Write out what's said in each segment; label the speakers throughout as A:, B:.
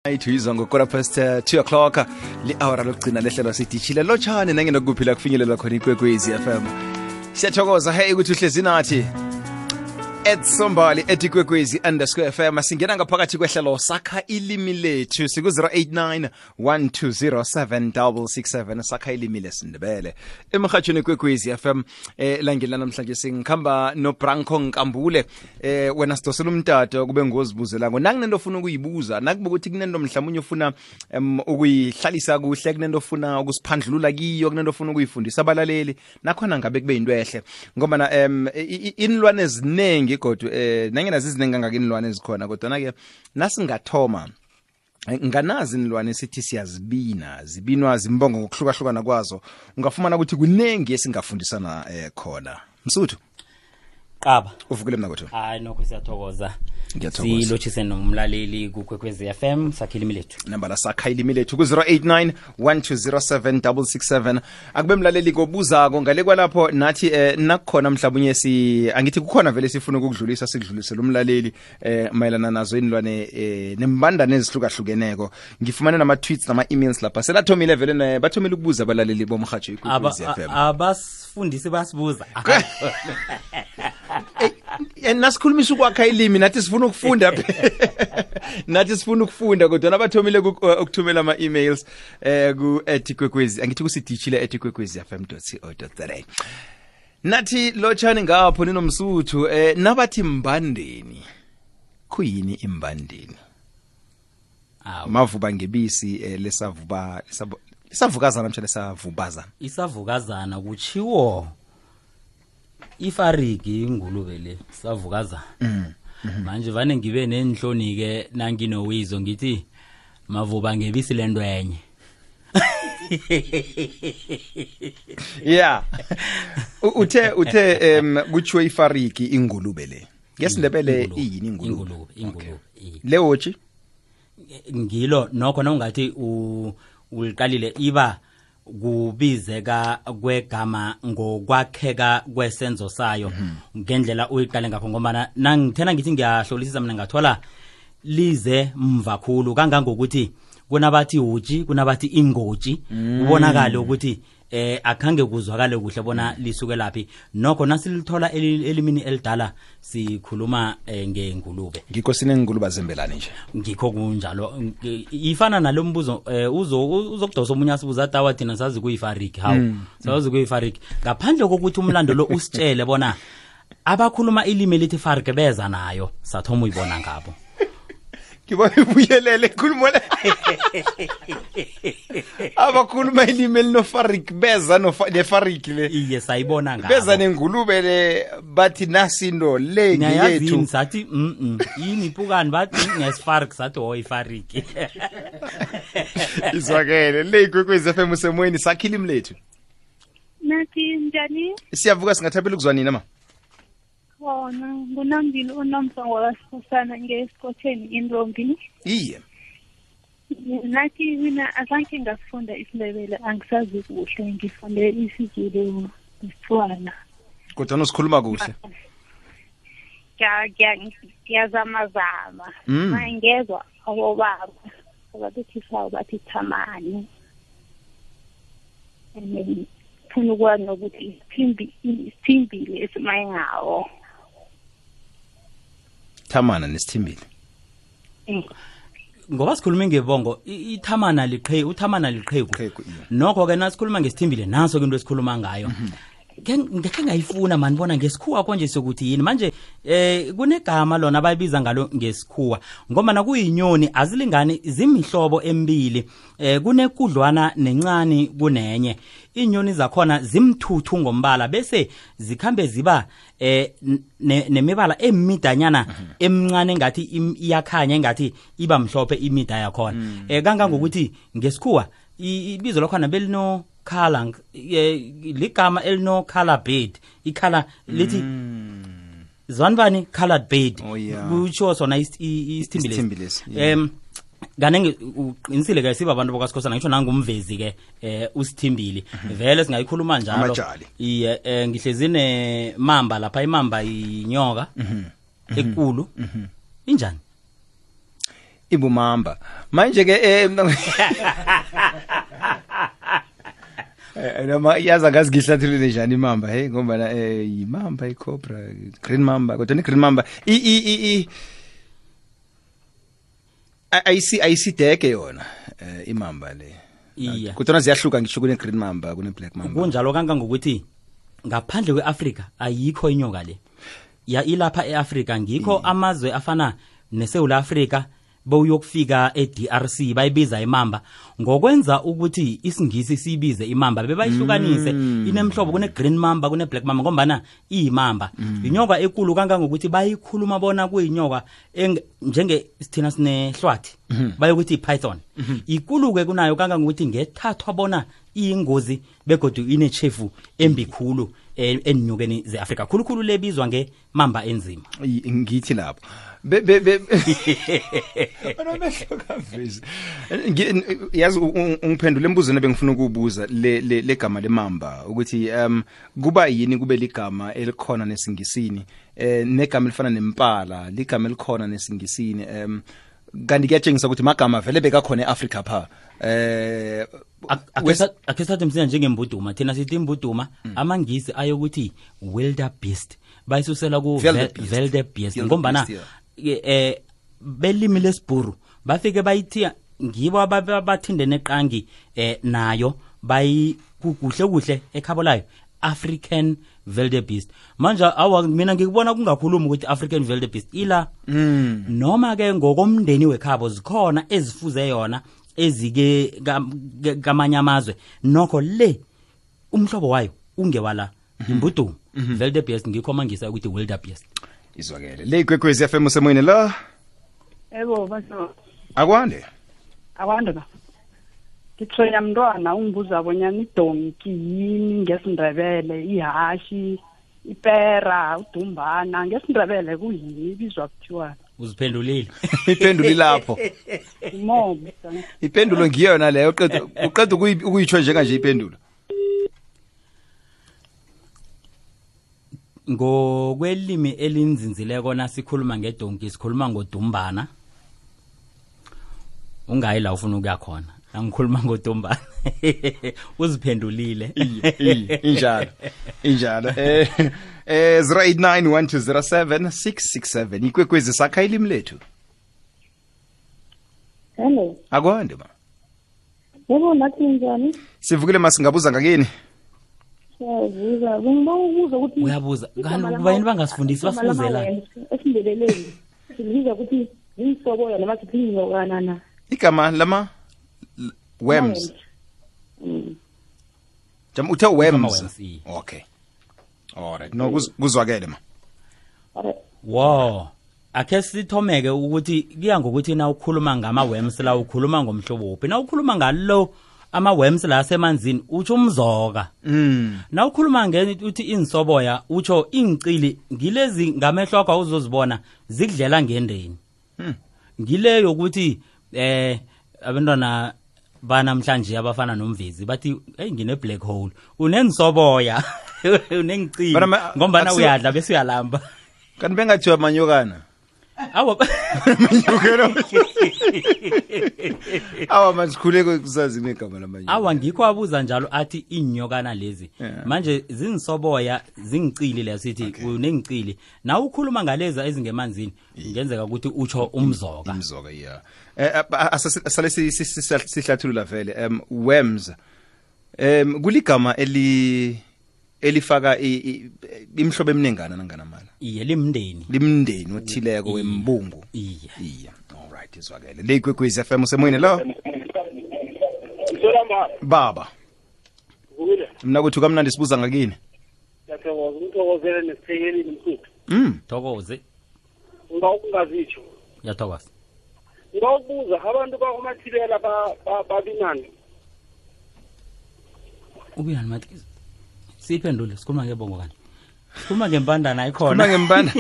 A: Ayithizwa ngokora past 2 o'clock li-hour lokugcina lehlelo sidishile lotshane nangenokuphila kufinyelela khona iKwekwezi FM. Siyathokoza hey ukuthi uhlezi nathi @sombali @kwekwezi_FM. Singena ngaphakathi kwehlelo sakha ilimi lethu siku 0891207667 sakha ilimi lesindebele emhathweni kwekwezi FM. Langela namhlanje singikhamba no Branko Nkambule. Wena sidosela umtato kube ngozibuzela ngo nanginento ofuna ukuyibuza nakuba ukuthi kunento mhlawumnye ufuna ukuyihlalisa kuhle, kunento ofuna ukusiphandlulula kiyo, kunento ofuna ukuyifundisa abalaleli nakhona ngabe kube into ehle ngoba na inilwane ezinengi kodwa nangena zizinengi kangaka inilwane ezikhona kodwa na ke nasingathoma nganazi inilwane sithi zibinwa zimbongo ngokuhlukahlukana kwazo ungafumana ukuthi kunengi esingafundisana khona. Msuthu
B: Qaba
A: uvukile mina kodwa
B: hayi nokho siyathokoza silochise nomlaleli kuKwekwezi FM sakha ilimi lethu
A: namba la sakha ilimi lethu ku 0891207667 akube mlaleli kobuzako ngale kwalapho nathi nakukhona mhlawumnye angithi kukhona vele sifuna ukudlulisa sikudlulisela umlaleli mayelana nazo inilwane nembandane ezihlukahlukeneko. Ngifumane nama tweets nama emails lapha selathomile vele bathomile ukubuza abalaleli bomhatsho iKwekwezi FM
B: abasifundisi basibuza
A: nasikhulumisa ukwakha ilimi nathi sifuna ukufunda nathi sifuna ukufunda kodwa nabathomile ukuthumela ama emails ku @kwekwezi angithi kusidishile @kwekwezifm.co.za. Nathi lotshani ngapho ninomsuthu nabathi mbandeni kuyini imbandeni? Mavuba ngebisi lesavukazana mhlawumbe lesavubazana
B: isavukazana kuchiwo ifariki ingulube le savukazana. Manje vane ngibe nenhloni ke nanginowizo ngithi mavuba ngebisi lento enye.
A: Yeah. Uthe kuchiwe ifariki ingulube le. Ngesindebele iyini ingulube? Lewochi
B: ngilo nokho nawungathi uliqalile iba kubizeka kwegama ngokwakheka kwesenzo sayo ngendlela uyiqale ngakho ngoba nangithena ngithi ngiyahlolisisa mina ngathola lize mvakhulu kangangokuthi kunabathi uji kunabathi ingoji ubonakala ukuthi akhange kuzwakale kuhle bona lisuke laphi nokho nasilithola elimini elidala sikhuluma ngengulube.
A: Ngikho sinengulube zembelani nje
B: ngikho kunjalo ifana nalombuzo uzokudosa omunye asibuza tawa thina sazi kuyifariki sazi kuyifariki ngaphandle kokuthi umlando lo usitshele bona abakhuluma ilimi lithi fariki beza nayo sathoma uyibona ngabo
A: Kiba ubuyelele khuluma le abakhuluma ilimi linofarik beza nefariki le
B: iye sayibona ngabo
A: beza nengulube le bathi nasindo le ngiyethu
B: sathi yini pukani bathi ngesifariki sathi ifariki
A: izwakele le iKwekwezi FM usemoyeni sakha ilimi lethu.
C: Nathi njani?
A: Siyavuka singathapela ukuzwanini ama
C: Khona ngunambili unomsango wasifusana ngesikotsheni intombi.
A: Iye.
C: Nathi mina azange ngasifunda isiNdebele angisazi kuhle ngifunde isiZulu nesitswana.
A: Kodwa nosikhuluma kuhle.
C: Ngiyazamazama. Ngezwa abobaba abathi sawo bathi thamani. Funa ukwazi ukuthi isithimbile esimayingawo.
A: Thamana nesithimbile.
B: Ngoba sikhuluma ngebongo ithamana liqheku uthamana liqheku nokho ke nasikhuluma ngesithimbile naso ke into esikhuluma ngayo ngeke ngayifuna mani bona ngesikhuwa konje sokuthi yini manje kunegama lona abayibiza ngalo ngesikhuwa ngoba nakuyinyoni azilingani zimihlobo emibili kunekudlwana nencane kunenye inyoni zakhona zimthuthu ngombala bese zikhambe ziba nemibala emidanyana emncane ngathi iyakhanya ngathi iba mhlophe imida yakhona kangangokuthi ngesikhuwa ibizo lakhona belino color ligama elino color bird ikhala lithi zwanbani colored bird kutsho sona isithimbile kanenge uqinisile ke siba abantu bakaSikhosana ngisho nangumvezi ke usithimbile vele singayikhuluma njalo iye ngihlezine mamba lapha imamba inyoka ekulu injani
A: ibumamba manje ke noma yaza ngazi ngihlathulule njani imamba hey ngoba imamba icobra green mamba kodwa ni green mamba ayisideke yona imamba le
B: iya
A: kodwa ziyahluka ngisho kune green mamba kune black mamba
B: kunjalo kangangokuthi ngaphandle kweAfrika ayikho inyoka le ya ilapha eAfrika ngikho amazwe afana neSouth Africa bowuyokufika eDRC bayibiza imamba ngokwenza ukuthi isingisi sibize imamba bebayihlukanise inemhlobo kune green mamba kune black mamba ngombana iyimamba inyoka ekulu kangangokuthi bayikhuluma bona kuyinyoka njenge sithina sinehlwathi bayokuthi python ikuluke kunayo kangangokuthi ngethathwa bona iyingozi begodu inechefu embikhulu enyokeni zeAfrika khulukhulu lebizwa ngemamba enzima
A: ngithi lapho yazi ungiphendule embuzweni ebengifuna ukubuza le gama lemamba ukuthi kuba yini kube ligama elikhona nesingisini negama elifana nempala ligama elikhona nesingisini kanti kuyatshengisa ukuthi magama vele bekakhona eAfrika pha
B: akhesathi msina njengembuduma thina sithi imbuduma amangisi ayokuthi wildebeest bayisusela ku wildebeest ngombana belimi lesibhuru bafike bayithiya ngibo abathindene eqangi nayo kuhle ekhabo layo African wildebeest manje mina ngikubona kungakhuluma ukuthi African wildebeest ila noma ke ngokomndeni wekhabo zikhona ezifuze yona ezike kamanye amazwe nokho le umhlobo wayo ungewala imbuduma wildebeest ngikho mangisa ukuthi wildebeest
A: izwakele le Ikwekwezi FM usemoyeni la
D: Ebo baso
A: akwande
D: ba Kithoya mntwana ungibuza bonyana idonki yini ngesindebele ihashi ipera udumbana ngesindebele kuyini ibizwa kuthiwa
B: uziphendulile
A: iphenduli lapho
D: mobo
A: ipendulo ngiyona leyo uqeda ukuyitsho njenga nje ipendulo
B: ngokwelimi elinzinzileko nasikhuluma ngedonki sikhuluma ngodumbana ungayi la ufuna ukuya khona angikhuluma ngodumbana uziphendulile
A: injalo 0891207667 Ikwekwezi sakha ilimi lethu
C: hello
A: akwande ma
C: yebo nathi njani
A: sivukile masingabuza ngakini
C: siyabuza bengibuza ukuthi
B: uyabuza kanti kubayini bangasifundisi basifuzela
C: esindebeleni sibiza ukuthi insobo noma siphinyo kanana
A: igama lama worms jam uthe worms okay alright no kuzwakele ma
B: wow akhe sithomeke ukuthi kuya ngokuthi na ukhuluma ngama worms la ukhuluma ngomhlobo uphi na ukhuluma ngalo ama worms la semanzini utsho umzoka na ukhuluma ngeni uthi insoboya utsho ingcili ngilezi ngamehloko awuzozibona zikudlela ngendeni ngileyo ukuthi abantwana banamhlanje abafana nomvezi bathi hey ngine black hole unensoboya unengcili ngombana uyadla bese uyalamba
A: kanti bengathiwa manyokana
B: awa
A: awa masikhuleke kusazi negama lamanye
B: awa ngikho abuza njalo athi inyokana lezi manje zinsoboya zingicili lesithi unengicili na ukhuluma ngaleza ezingemanzini ngenzeka ukuthi utsho umzoka
A: yeah asale sihlathulula vele worms kuligama elifaka imhlobo eminengana nanganamala
B: iye limndeni
A: othileko wembungu
B: iye
A: alright izwakele le Ikwekwezi FM usemoyeni lo baba mina kuthi kamnandi sibuza ngakini
E: Ngiyathokoza umthokozele nesithekeli mfuthu
B: thokoze
E: ungazitsho
B: yathokoza
E: ngawubuza abantu bakumathilela babinani
B: ubuyani mathi siphendule sikhuluma ngebongo kanti sikhuluma ngempandana ayikhona
A: sikhuluma ngempanda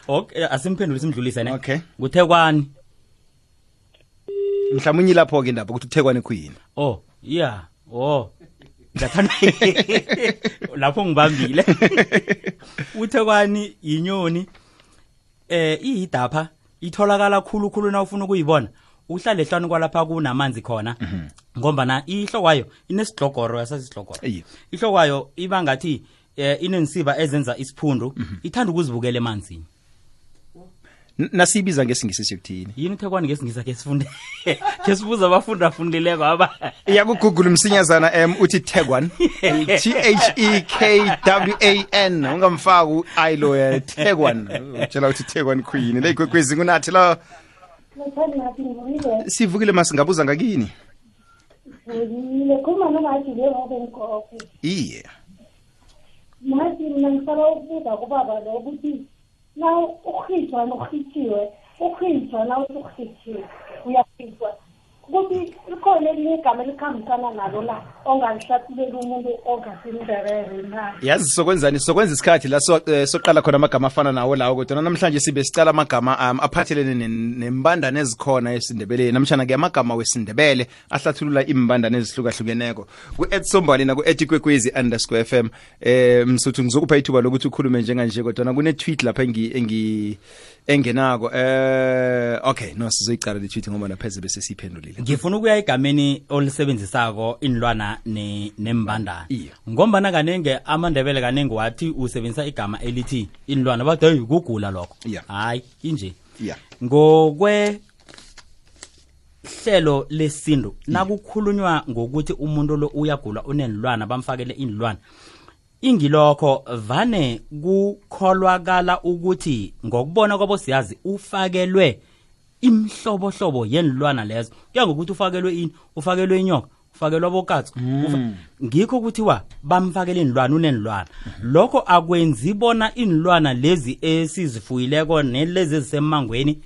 B: okay asimphendule simdlulise ne
A: okay
B: kuthekwani
A: mhlawumnye lapho ke indaba ukuthi uthekwani khuyini
B: oh yeah ngathanda lapho ngibambile uthekwani inyoni iyidapha itholakala khulu na ufuna ukuyibona uhlale ehlanu kwalapha kunamanzi khona ngombana ihlokwayo inesidlogoro yasasisidlogoro ihlokwayo iba ngathi inensiba ezenza isiphundu ithanda ukuzibukela emanzini
A: nasibiza ngesingisi sikuthini
B: yini uThekwani ngesingisa ke sifunde ke sibuza abafundi afundileko aba
A: iyakugoogle msinyazana uthi Thekwan THEKWAN ungamfaka uilo Thekwan utshela uthi Thekwan queen le Ikwekwezi kunathi la sivukile masingabuza ngakini
C: Kuma ngathi leyo benkofi
A: iye
C: manje mina ngisaba ukubuza kubaba lo ukuthi na ukhitshwa nokhithiwe ukhitshwa na ukhithiwe uyakhitshwa ukuthi ikhona elinye igama elikhambisana nalo la onganihlathuleli umuntu ongasindebele na
A: yazi sokwenzani sokwenza isikhathi la soqala khona amagama afana nawo lawo kodwa namhlanje sibe sicala amagama aphathelene nembandane ezikhona esindebeleni namtshana ke amagama wesindebele ahlathulula imbandane ezihlukahlukeneko ku@sombali na ku@ikwekwezi_fm msuthu ngizokupha ithuba lokuthi ukhulume njenganje kodwa kune tweet lapha engenako okay no sizoyiqala le tweet ngoba napheze bese siphendulile
B: ngifuna ukuya igameni olisebenzisako inlwana nembandana ngombana kanenge amandebele kanenge wathi usebenzisa igama elithi inlwana bathi hey kugula lokho hayi inje ngokwe hlelo lesintu nakukhulunywa ngokuthi umuntu lo uyagula unenlwana bamfakele inlwana ingilokho vane kukholwakala ukuthi ngokubona kwabo siyazi ufakelwe imhlobohlobo yenilwana lezo kuya ngokuthi ufakelwe ini ufakelwe inyoka ufakelwe abokatsi ngikho kuthiwa bamfakele inilwana unenilwana lokho akwenzi bona inilwana lezi esizifuyileko nelezi ezisemangweni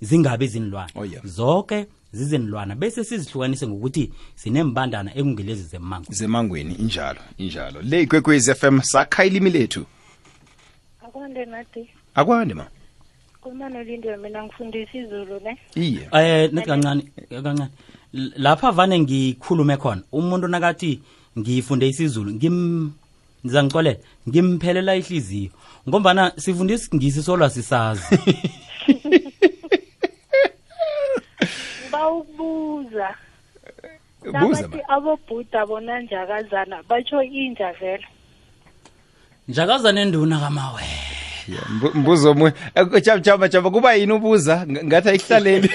B: zingabe izinilwana zonke zizenilwana bese sizihlukanise ngokuthi sinembandana ekungelezi
A: zemangweni injalo le Ikwekwezi FM sakha ilimi lethu
C: akwande nathi
A: akwande ma
C: kumana lindo mina ngifundisa izulu ne
A: iye
B: nethi kancane lapha vane ngikhulume khona umuntu nakathi ngifunde isizulu ngizangixolela ngimphelela ihliziyo ngombana sifundisa ngisi solwa sisazi
C: bawubuza bathi abobhuda bona njakazana batsho inja vele
B: njakazana enduna kamawe
A: mbuzo omunye jaba kuba yini ubuza ngathi ayihlaleli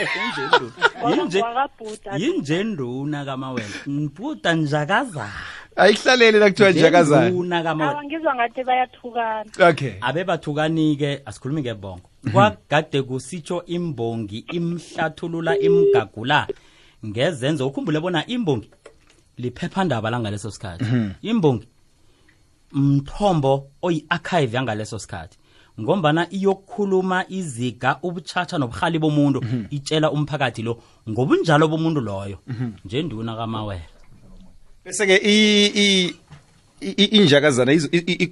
B: yinje nduna kamawela mbhuda njakazana
A: ayihlaleli nakuthiwa njakazana
B: nduna kamawela
C: awangizwa ngathi bayathukana
A: okay
B: abe bathukanike asikhulumi ngebongo kwagade kusitsho imbongi imhlathulula imgagula ngezenzo ukhumbule bona imbongi liphephandaba langaleso sikhathi imbongi mthombo oyi-archive yangaleso sikhathi ngombana iyokukhuluma iziga ubuchacha nobuhali bomuntu itshela umphakathi lo ngobunjalo bomuntu loyo nje nduna kamawela
A: bese ke injakazana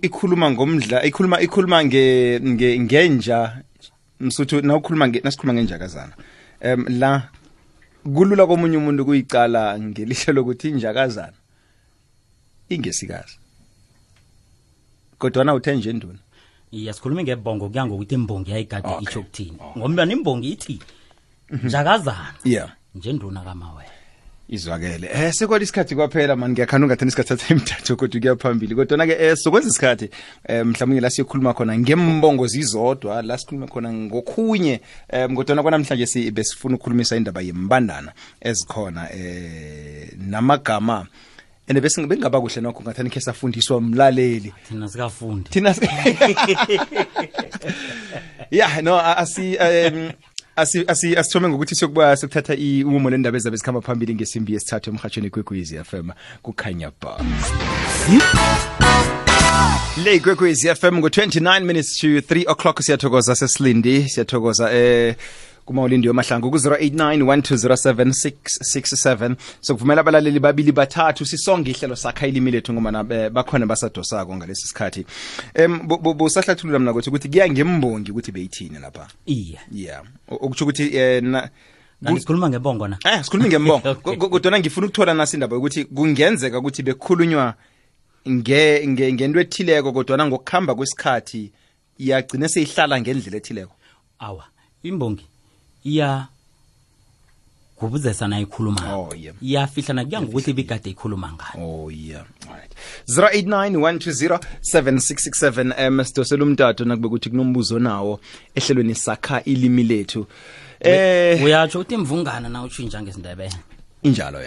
A: ikhuluma ngomdla ikhuluma ngenja msuthu nasikhuluma ngenjakazana la kulula komunye umuntu kuyicala ngelihlo lokuthi injakazana ingesikazi kodwa na uthenje nduna
B: sikhuluma ngebongo kuya ngokuthi imbongi yayigade itsho kuthini ngombana imbongi ithi njakazana nje nduna kamawela
A: izwakele sekwali isikhathi kwaphela mani ngiyakhana ungathini isikhathi satha imithathu kodwa kuyaphambili kodwa ke sokwenza isikhathi mhlawumnye la siyokhuluma khona ngembongo zizodwa la sikhuluma khona ngokhunye kodwa kwanamhlanje besifuna ukukhulumisa indaba yembandana ezikhona namagama ene bese ngaba kuhle nokho ngathani ke safundiswa umlaleli
B: thina sikafundi
A: asithome ngokuthi sokuba sokuthatha umumo lendaba ezabe zikhamba phambili ngesimbi yesithathu emhathweni Ikwekwezi FM kukhanya ba le Ikwekwezi FM ngo-29 minutes to 3 o'clock siyathokoza sesilindi siyathokoza kumawulindi yomahlangu ku-089 sokuvumela abalaleli babili bathathu sisonge ihlelo sakha ilimi lethu ngoba bakhona basadosako ngalesi sikhathi busahlathulula mina ukuthi kuya ngembongi ukuthi beyithini lapha okutsho ukuthi
B: sikhuluma ngebongo na
A: sikhuluma ngembongo kodwa ngifuna ukuthola nasi indaba ukuthi kungenzeka ukuthi bekhulunywa ngento ethileko kodwa ngokukhamba kwesikhathi yagcina seyihlala ngendlela ethileko
B: awa imbongi iya kubuzesa na ikhuluma
A: Oh, yeah.
B: iyafihlana kuya ngokuthi bikade ikhuluma ngani.
A: Oh yeah. Alright. 0891207667 sidosela umtato nakube kuthi kunombuzo nawo ehlelweni sakha ilimi lethu.
B: Uyatsho uthi imvungana na utshintsha ngesindebele.
A: Injalo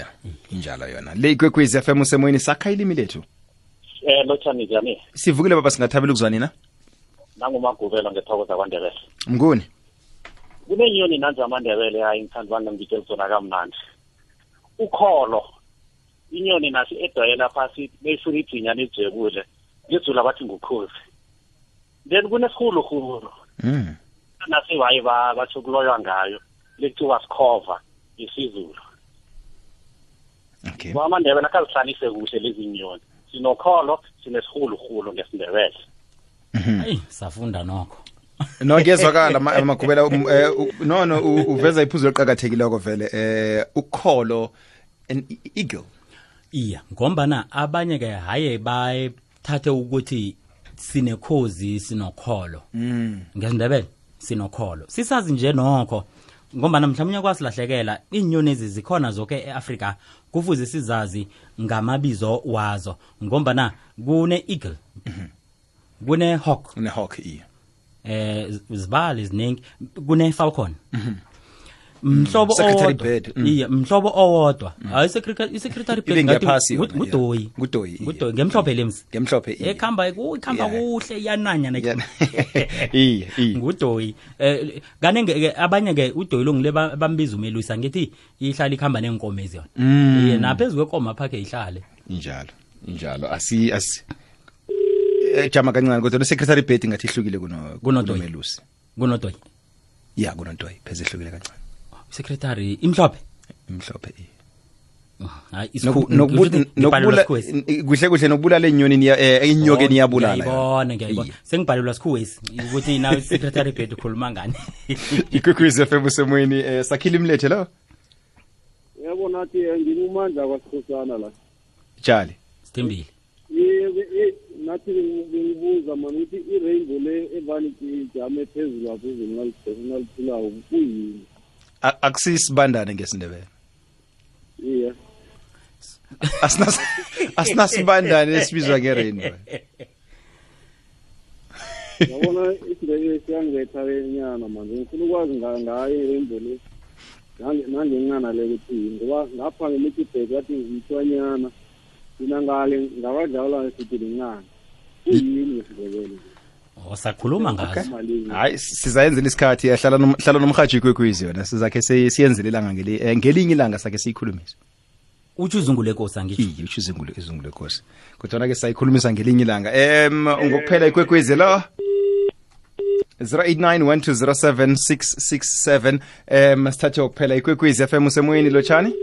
A: yona. Le Ikwekwezi FM usemoyeni sakha ilimi lethu.
E: Lotshani njani?
A: Sivukile baba singathabela ukuzwa nina.
E: Nangumagubelo ngethokoza kwaNdebele.
A: Mnguni.
E: Kunenyoni nanje amaNdebele hayi ngithanda ngitshela zona kamnandi. Ukholo. Inyoni nasi edwayela phasi beyifuna idzinya lijebule. Ngizula bathi ngukhozi. Then kunesihuluhulu. Nasi waye bachokuloywa ngayo. Lekuthiwa sikhova isizulu.
A: Okay.
E: AmaNdebele akazihlalise kuhle lezi nyoni. Sinokholo, sinesihuluhulu ngesindebele.
B: Hey, safunda nokho.
A: No ngiyezwakala magubela no uveza iphuzo eliqhakathekileko vele ukholo an eagle.
B: Iya, ngombana abanye ke haye bayithathe ukuthi sinekhozi sinokholo. Ngesindebele sinokholo. Sisazi nje nokho ngombana mhlawumnye kwasilahlekela inyoni ezi zikhona zonke eAfrika kufuze sizazi ngamabizo wazo ngombana kune eagle. Kune hawk.
A: Kune hawk iya.
B: Zibali ziningi kune falcon. Mhlobo
A: secretary
B: owodwa.
A: bird.
B: Iya, mhlobo owodwa. Hayi secretary bird
A: ngathi
B: ngudoyi.
A: Ngudoyi.
B: Ngudoyi ngemhlophe lemsi.
A: Ngemhlophe iya.
B: Ekhamba kuhle iyananya na.
A: Iya.
B: Ngudoyi. Kanenge abanye ke udoyi longile bambiza umelusa ngithi ihlala ikhamba nenkomezi yona. Naphezulu kwenkoma phakhe ihlale.
A: Injalo. Asi jama kancane kodwa secretary bird ngathi ihlukile kunomelusi.
B: Kunodoyi.
A: Yeah, kunodoyi pheze ihlukile kancane.
B: Secretary imhlophe hayi
A: nokubula kuhle nokubulala inyoni inyoke niyabulala
B: ngiyayibona sengibhalelwa sikhuwesi ukuthi nawe secretary bird ukhuluma ngani.
A: Ikwekwezi FM usemoyeni sakhile imlethe lo
E: Yabona athi ngimumandla kwaSikhosana la.
A: Tshali
B: Sithembile.
E: Nathi ngibuza manje ukuthi i-rainbow le evanity ijame phezulu lapho naliphulayo kuyini?
A: Akusisibandane ngesindebele.
E: Iya.
A: Asinasibandane esibizwa nge-rainbow.
E: Yabona isindebele siyangetha lenyana manje ngifuna ukwazi ngayo i-rainbow le. Nangencana le ukuthi ngoba ngapha ngeMikibhek wathi ngitshwanyana. Mina ngale ngabadlala sithi lincane. Kuyini isindebele?
B: Sakhuluma ngazo.
A: Hayi sizayenzela isikhathi hlala nomhaji Ikwekwezi yona sizakhe siyenzele ilanga ngelinye ilanga sakhe siyikhulumisa.
B: Uthi uzungule Nkosi angithi.
A: Uthi izungule Nkosi. Kodwa ke sayikhulumisa ngelinye ilanga. Ngokuphela Ikwekwezi lo 0891207667 sithathe ukuphela Ikwekwezi FM usemoyeni lotshani.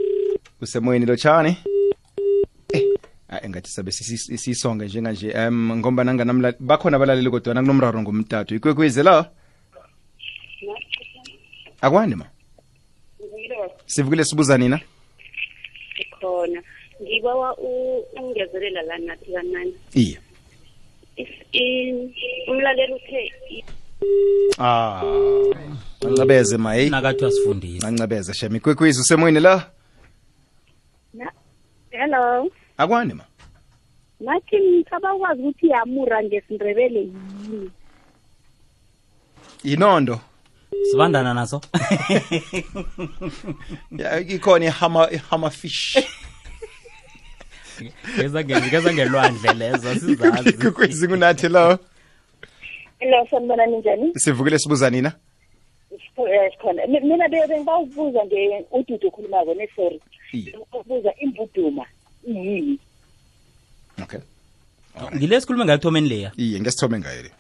A: Engathi sabe sisonge njenganje ngomba nanganamla bakhona abalaleli kodwa nakunomraro ngomtato Ikwekwezi la akwani ma sivukile sibuza nina
F: khona ngibawa ungezelela la nathi kanani
A: iya
F: umlaleli uthe
A: Ancabeze mayi
B: nakathi asifundise
A: ancabeze shema Ikwekwezi usemoyeni la
F: Hello
A: akwani ma
F: nathi ngicabakwazi ukuthi yamura ngesindebele yini
A: inondo
B: sibandana naso
A: ikhona ihama fish
B: ngeza ngelwandle lezo sizazi
A: Ikwekwezi kunathi lo
F: Hello sanibona ninjani
A: sivukile sibuza nina
F: khona mina bengibawubuza uDudu ukhulumako sorry ukubuza imbuduma yini
A: Okay.
B: Ngilesikhuluma ngayithomeni leya.
A: Iye ngesithome ngayo le.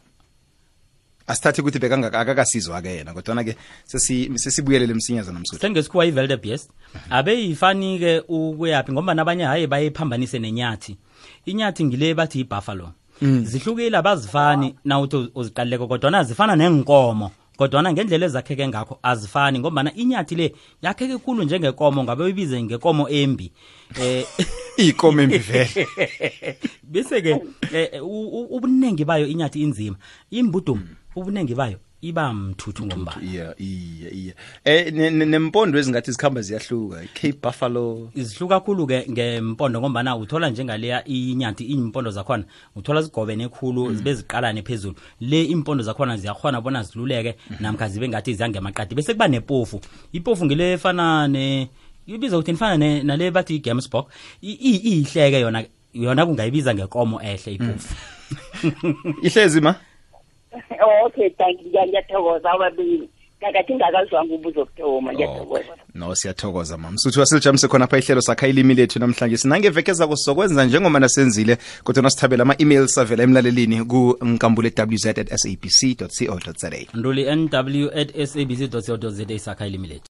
A: Asithathe ukuthi akakasizwa ke yena kodwa ke sesibuyelele emsinyaza namsuku.
B: Sengesikhuwa iVeldebest abe yifani ke ukuyapi ngoba nabanye haye bayephambanise nenyathi. Inyathi ngile bathi ibuffalo. Zihlukile abazifani na uthi uziqaleke kodwa nazifana nenkomo. Kodwa ngendlela ezakheke ngakho azifani ngoba inyathi le yakheke kukhulu njengenkomo ngabe uyibize ngenkomo embi
A: ikomo embi vele
B: bese ke ubunengi bayo inyathi inzima imbuduma ubunengi bayo iba mthuthu ngombala
A: nempondo ezingathi zikhamba ziyahluka Cape Buffalo
B: izihluka kakhulu ke ngempondo ngombana uthola njengaleya inyathi impondo zakhona uthola zigobene ekhulu zibe ziqalane phezulu le impondo zakhona ziyakhona bona ziluleke namkha zibe ngathi ziyangemaqadi bese kuba nepofu ipofu ngile efana ibiza ukuthi nifana nale bathi iGamesburg ihleke yona kungayibiza ngekomo ehle ipofu
A: ihlezi ma
F: Okay, thank you. Ngiyathokoza ababili. Kakathi ngakazwanga ubuzo kuthoma ngiyathokoza.
A: No siyathokoza mama. Msuthu wasijamise khona apha ihlelo sakha ilimi lethu namhlanje. Sinangevekeza kusokwenza njengoba nasenzile kodwa nasithabela ama-emails avela emlalelini ku nkambule@wz@sabc.co.za.
B: nduli nw@sabc.co.za sakha ilimi lethu.